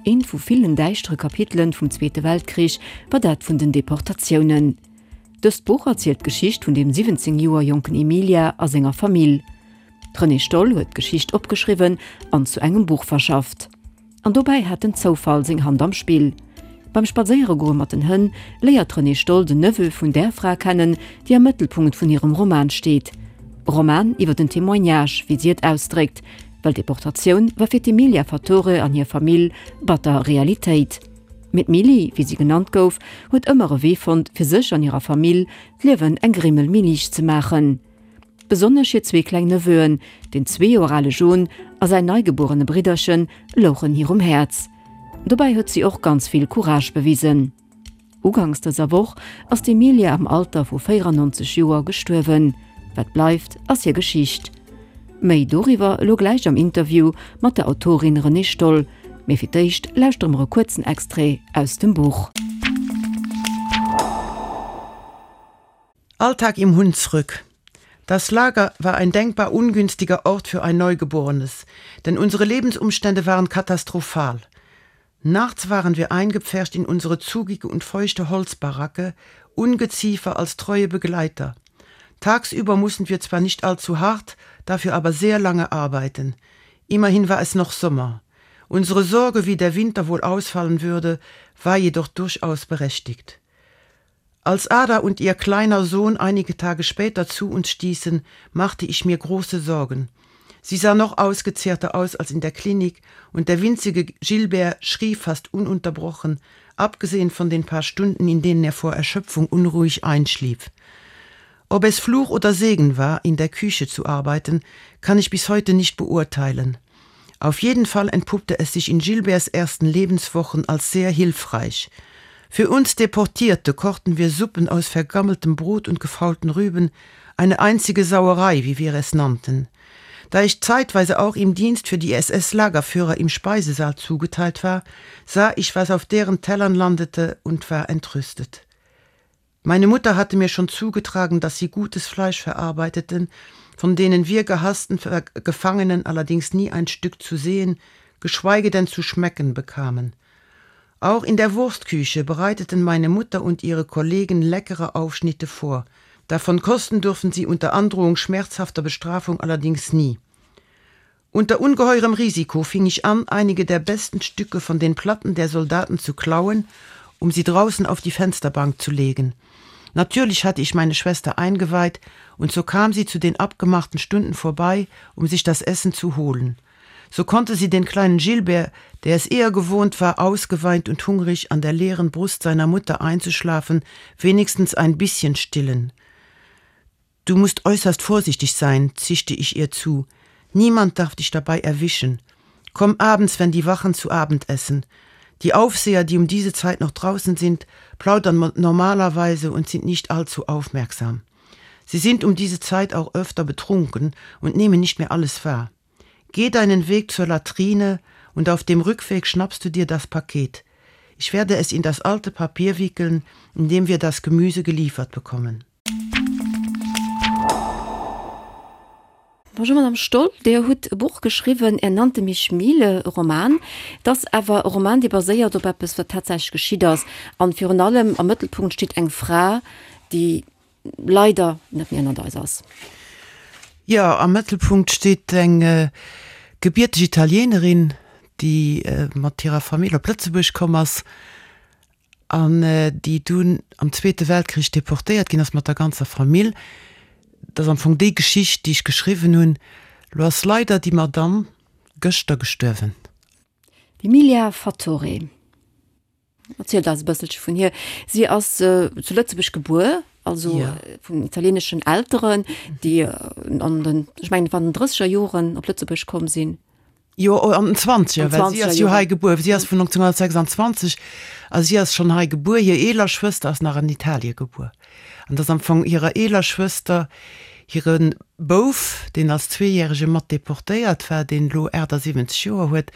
Eent vu villen däischtere Kapitelen vum Zweete Weltkrich war dat vun den Deportatiounen. Dëst Buch erzielt d'Geschicht vun dem 17 Joer jonken Emilia a senger Famill. D'Renée Stoll huet d'Geschicht opgeschriwwen an zu engem Buch verschafft. An dobäi hat den Zoufall seng Hand am Spill. Beim Spadséieregoe mat den Hënn léiert d'Renée Stoll den Neveu vun där Fra kennen, déi am Mëttelpunkt vun hirem Roman steet. E Roman iwwer den Témoignage, wéi si et ausdréckt, well d'Deportatioun war fir d'Emilia Fattore an hir Famill batter Realitéit. Mee d'Milly, wéi si genannt gouf, huet ëmmer e Wee fonnt, fir sech an hirer Famill d'Liewen eng Grimmel méi liicht ze maachen. Besonnesch hir zwee kleng Neveuen, den zwee Joer ale John a säin neigebuerene Bridderchen, louchen hir um Häerz. Dobäi huet si och ganz vill Courage bewisen. Uganks dëser Woch ass d'Emilia am Alter vu 94 Joer gestuerwen. Wat bleift, ass hir Geschicht. Méi doriwwer elo gläich am Interview mat der Autorin Renée Stoll. Mee fir d'éischt lauschtere mer e kuerzen Extrait aus dem Buch. Alltag im Hunsrück. Das Lager war ein denkbar ungünstiger Ort für ein Neugeborenes, denn unsere Lebensumstände waren katastrophal. Nachts waren wir eingepfercht in unsere zugige und feuchte Holzbaracke, Ungeziefer als treue Begleiter. Tagsüber mussten wir zwar nicht allzu hart, dafür aber sehr lange arbeiten. Immerhin war es noch Sommer. Unsere Sorge, wie der Winter wohl ausfallen würde, war jedoch durchaus berechtigt. Als Ada und ihr kleiner Sohn einige Tage später zu uns stießen, machte ich mir große Sorgen. Sie sah noch ausgezehrter aus als in der Klinik und der winzige Gilbert schrie fast ununterbrochen, abgesehen von den paar Stunden, in denen er vor Erschöpfung unruhig einschlief. Ob es Fluch oder Segen war, in der Küche zu arbeiten, kann ich bis heute nicht beurteilen. Auf jeden Fall entpuppte es sich in Gilberts ersten Lebenswochen als sehr hilfreich. Für uns Deportierte kochten wir Suppen aus vergammeltem Brot und gefaulten Rüben, eine einzige Sauerei, wie wir es nannten. Da ich zeitweise auch im Dienst für die SS-Lagerführer im Speisesaal zugeteilt war, sah ich, was auf deren Tellern landete und war entrüstet. Meine Mutter hatte mir schon zugetragen, dass sie gutes Fleisch verarbeiteten, von denen wir gehassten Gefangenen allerdings nie ein Stück zu sehen, geschweige denn zu schmecken bekamen. Auch in der Wurstküche bereiteten meine Mutter und ihre Kollegen leckere Aufschnitte vor. Davon kosten durften sie unter Androhung schmerzhafter Bestrafung allerdings nie. Unter ungeheurem Risiko fing ich an, einige der besten Stücke von den Platten der Soldaten zu klauen, um sie draußen auf die Fensterbank zu legen. Natürlich hatte ich meine Schwester eingeweiht, und so kam sie zu den abgemachten Stunden vorbei, um sich das Essen zu holen. So konnte sie den kleinen Gilbert, der es eher gewohnt war, ausgeweint und hungrig an der leeren Brust seiner Mutter einzuschlafen, wenigstens ein bisschen stillen. Du musst äußerst vorsichtig sein, zischte ich ihr zu. Niemand darf dich dabei erwischen. Komm abends, wenn die Wachen zu Abend essen. Die Aufseher, die um diese Zeit noch draußen sind, plaudern normalerweise und sind nicht allzu aufmerksam. Sie sind um diese Zeit auch öfter betrunken und nehmen nicht mehr alles wahr. Geh deinen Weg zur Latrine und auf dem Rückweg schnappst du dir das Paket. Ich werde es in das alte Papier wickeln, in dem wir das Gemüse geliefert bekommen. Bonjour Madame Stoll, Dir hutt e Buch geschriwwen, Er nannte mich Miele, e Roman. Et ass awer e Roman, dee baséiert op eppes, wat tatsächlech geschitt ass. An virun allem am Mëttelpunkt steet eng Fra, déi leider net méi ënnert eis ass. Jo, am Mëttelpunkt steet eng gebierteg Italienerin, déi mat hirer Famill op Lëtzebuerg komm ass an déi dunn am Zweete Weltkrich deportéiert ginn ass mat der ganzer Famill. Dat ass am Fong déi Geschicht, déi ech geschriwwen hunn. Lo ass leider déi Madamm gëschter gestuerwen. D'Emilia Fattore, erzielt eis e bësselche vun hir. Si ass zu Lëtzebuerg gebuer, also vun italieneschen Elteren, déi an den, ech mengen et waren den drësseger Joren op Lëtzebuerg komm sinn. Jo, an den Zwanzeger, well si ass jo hei gebuer. Si ass vun 1926 a si ass schonn hei gebuer. Hir eeler Schwëster ass nach an Italie gebuer. An et ass am Fong hirer eeler Schwëster hire Bouf, deen als Zweejärege mat deportéiert war, deen elo 78 Joer huet,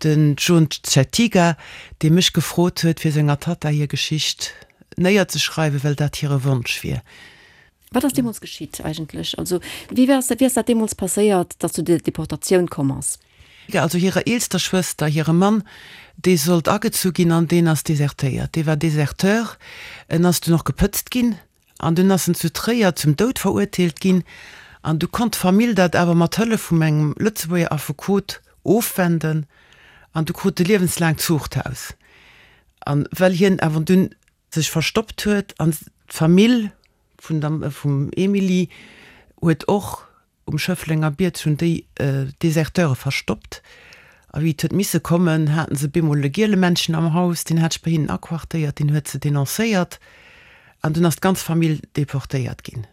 den John Cettiga, dee mech gefrot huet, fir senger Tatta hir Geschicht néierzeschreiwen, well dat hire Wonsch wier. Wat ass deemools geschitt eigentlech? Also wéi ass, wéi ass dat deemools passéiert, datt zu der Deportatioun komm ass? Also hirer eelster Schwëster, hire Mann, dee sollt agezu ginn an deen ass desertéiert. Dee war Deserteur. En ass dunn och gepëtzt ginn an dunn ass en zu Tréier zum Doud verurteelt ginn. An du konnt d'Famill dat awer mat Hëllef vum engem Lëtzebuerger Affekot ofwenden an du krut e liewenslaangt Zuchthaus. An well hien awer dunn sech verstoppt huet an d'Famill vun der vum Emilie huet och um Schëfflenger Bierg hunn déi Deserteure verstoppt a wéi et huet misse kommen, haten se bemol e Gielemännchen am Haus, deen hat sech bei hinnen aquartéiert, deen huet se denoncéiert an dunn ass d'ganz Famill deportéiert ginn,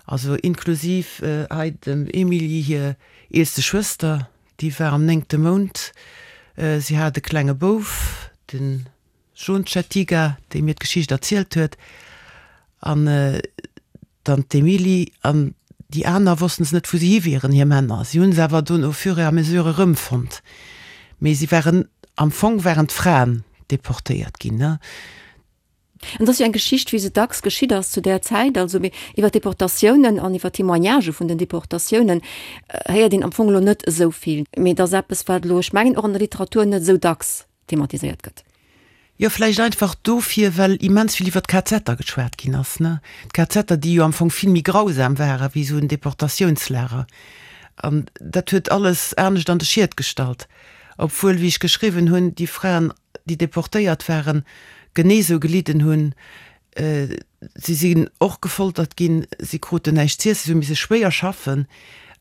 also inklusiv hei dem Emilie hir eelste Schwëster, déi war am néngte Mount, si hat e klenge Bouf, den John Cettiga, dee mir d'Geschicht erzielt huet, an dann d'Emilie an déi aner wossten se net, wou se hi wieren, hir Männer. Si hunn se awer dunn au fur et à mesure erëmfonnt, mee si waren, am Fong waren d'Fraen deportéiert ginn, ne? An et ass jo eng Geschicht, wéi se dacks geschitt ass zu där Zäit, also mee iwwer d'Deportatiounen an iwwer d'Témoignagë vun den Deportatiounen héiert een am Fong elo net esou vill. Mee et ass eppes, wat elo, ech mengen, och an der Literatur net esou dacks thematiséiert gëtt. Jo, vläicht einfach dofir, well immens vill iwwer d'KZer geschwat ginn ass, ne? D'KZer, déi jo am Fong vill méi grausam ware wéi esou en Deportatiounslager. An dat huet alles anescht an de Schiet gestallt. Obwuel, wéi ech geschriwwen hunn, déi Fraen, déi deportéiert waren, genee esou gelidden hunn Si sinn och gefoltert ginn, si kruten näischt z'iessen, si hu misse schwéier schaffen.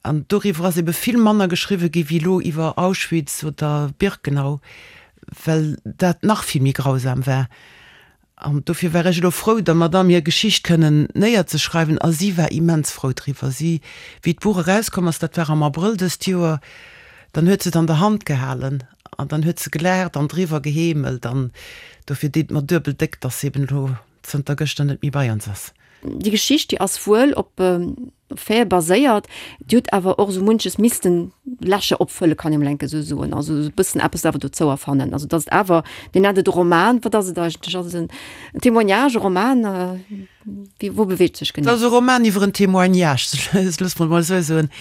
An doriwwer ass ebe vill manner geschriwwe gi wéi elo iwwer Auschwitz oder Birkenau, well dat nach vill méi grausam war. An dofir war ech elo frou, der Madamm hir Geschicht kënnen néierzeschreiwen. A si war immens frou driwwer. Si, wéi d'Buch erauskomm ass, dat war am Abrëll dëst Joer, dann huet se et an der Hand gehalen An dann huet se gelaacht an driwwer geheemelt an dofir deet mer duebel déck, dass se eben elo zënter gëschter net méi bei ons ass. Déi Geschicht, déi ass wuel op Faite baséiert, déi huet awer och esou munches missten Lächer opfëllen, kann ee mol enke esou soen, also esou e bëssen eppes awer dozou erfannen. Also dass et awer, Dir nennt et e Roman, wat ass et eigentlech? Ass et en Témoignage, e Roman? Wéi, wou beweegt sech genee? Et ass e Roman iwwer en Témoignage, loosse mer et mol esou soen.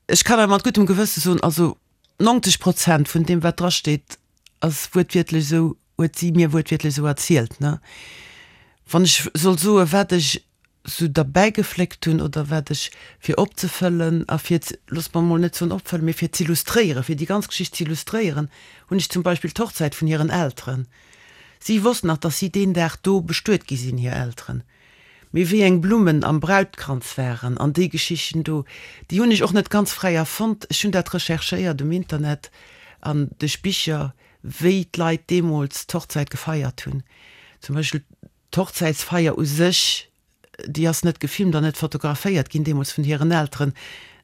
Ech kann awer mat guttem Gewësse soen, also 90 Prozent vun deem wat dra steet ass wuertwiertlech esou, huet si mir wuertwiertlech esou erzielt, ne. Wann ech soll soe wat ech esou derbäi gefléckt hunn oder wat ech fir opzefëllen a fir, looss mer emol net soen opfëllen, mee fir z'illustréieren, fir déi ganz Geschicht z'illustréieren, hunn ech zum Beispill d'Hochzäit vun hiren Elteren. Si wosst nach, datt si deen Dag do bestuet gi sinn, hir Elteren. Mee wéi eng Blummen am Brautkranz waren an déi Geschichten do, déi hunn ech och net ganz fräi erfonnt. Ech hunn dat recherchéiert um Internet an duerch Bicher, wéi d'Leit deemools d'Hochzäit gefeiert hunn. Zum Beispill d'Hochzäitsfeier u sech, déi ass net gefilmt an net fotograféiert ginn deemools vun hiren Elteren.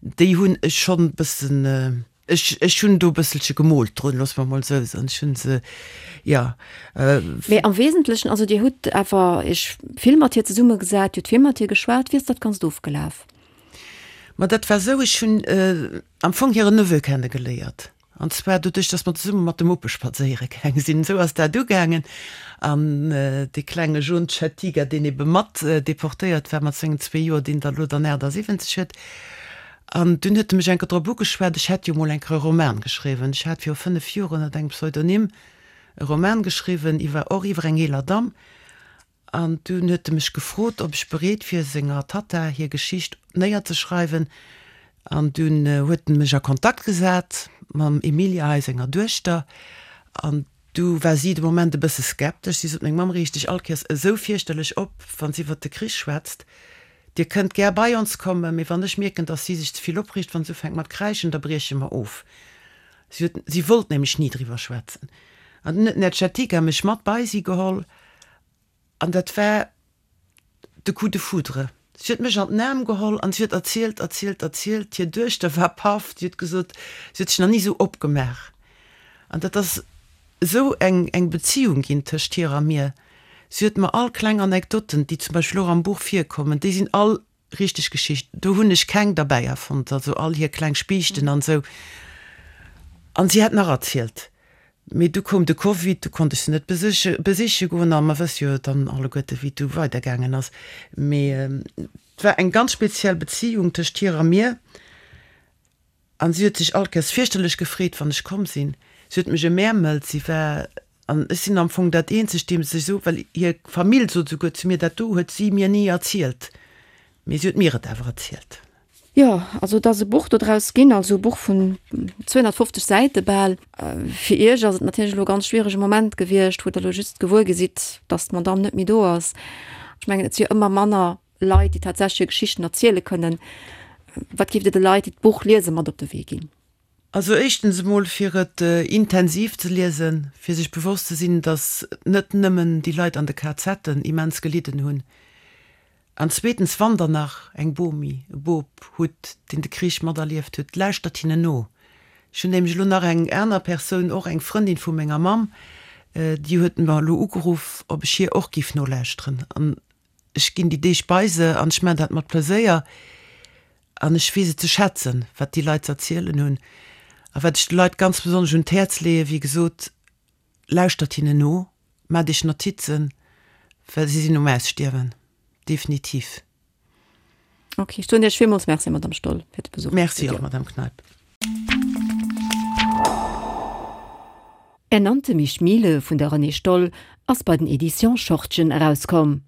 Déi hunn ech schonn e bëssen. Ech, ech hunn do e bësselche gemoolt drun, loosse mer emol esou soen. Ech hunn se, jo. Mee am Wesentlechen, also Dir hutt awer Iech vill mat hir zesummegesat, Dir hutt vill mat hir geschwat. Wéi ass dat Ganzt ofgelaf? Ma dat war esou, ech hunn am Fong hire Neveu kennegeléiert. An zwar doduerch, datt mer zesumme mat de Muppe spadséiere gaange sinn. Esou ass dat ugaangen. An dee klenge John Chettiga, deen ebe mat deportéiert war mat sengen zwee Joer, deen der elo dann 78 huet, An dunn huet e mech eng Kéier drop ugeschwat, ech hätt jo mol eng Kéier e Roman geschriwwen. Ech hat viru 5 Joer ënnert engem Pseudonym e Roman geschriwwen iwwer, och iwwer eng eeler Damm. An dunn huet e mech gefrot, ob ech bereet wier, senger Tatta hir Geschicht néierzeschreiwen. An dunn huet en mech a Kontakt gesat mam Emilia hei, senger Duechter. An du war si de Moment e bësse skeptesch. Si sot, Meng Mamm reegt sech all Kéiers esou fierchterlech op, wa si iwwer de Krich schwätzt. Dir kënnt gär bei ons kommen, mee wann ech mierken, dass si sech ze vill opreegt, wann se ufänkt mat kräischen, da brieche mer of. Si huet, si wollt nämlech ni driwwer schwätzen. An dunn huet d'Nedjetika mech mat bei si geholl an dat war de Coup de foudre. Si huet mech an den Aarm geholl an si huet erzielt, erzielt, erzielt. Hir Duechter war paff. Si huet gesot, si huet sech nach ni esou opgemaach. An dat ass esou eng, eng Beziung ginn tëscht hir a mir. Si huet mer all kleng Anekdoten, déi zum Beispill och am Buch virkommen, déi sinn all richteg Geschichten, do hunn ech keng derbäi erfonnt, also all hir kleng Spiichten an esou. An si hätt nach erzielt, mee du koum de Covid, du konnt ech se net besiche besiche goen a mer wësse jo dann alleguerte wéi et du weidergaangen ass. Mee et war eng ganz speziell Beziung tëscht hir a mir. An si huet sech all Kéiers fierchterlech gefreet, wann ech komm sinn. Si huet mech emäermelt. Si war, an ech sinn am Fong dat eenzegt, deem se sech esou, well hir Famill sot esouguer zu mir, dat do huet si mir ni erzielt, mee si huet mir et awer erzielt. Jo, also et ass e Buch dodraus ginn, also e Buch vun 250 Säite bal. Fir Iech ass et natierlech elo e ganz schwierege Moment gewiescht, wou Der elo just gewuer gi sidd, datt d'Madamm net méi do ass. Ech mengen, et si jo ëmmer manner Leit, déi tatsächlech hir Geschichten erziele kënnen. Wat géift Dir de Leit, déi d'Buch liesen, mat op de Wee ginn? Also éischtens emol fir et intensiv ze liesen, fir sech bewosst ze sinn, datt net nëmmen déi Leit an de KZen immens gelidden hunn. An zweetens, wann Der nach eng Bomi, e Bop hutt, deen de Krich materlieft huet, lauschtert hinnen no. Ech hunn nämlech elo nach eng aner Persoun, och eng Frëndin vu menger Mamm, déi huet mer elo ugeruff, ob ech hir och géif nolauschteren. An Ech ginn déi Deeg bei se an ech maachen dat mat Pleséier an ech weess et ze schätzen, wat déi Leit ze erzielen hunn. A wat ech de Leit ganz besonnesch un d'Häerz leeën, wéi gesot, lauschtert hinnen no, maacht iech Notizen, well si sinn um Ausstierwen, definitiv. Ok, ech soen Iech villmools Merci, Madame Stoll, fir de Besuch am Merci och, Madame Kneip. Er nannte mich Miele vun der Renée Stoll ass bei den Editions Schortgen erauskomm.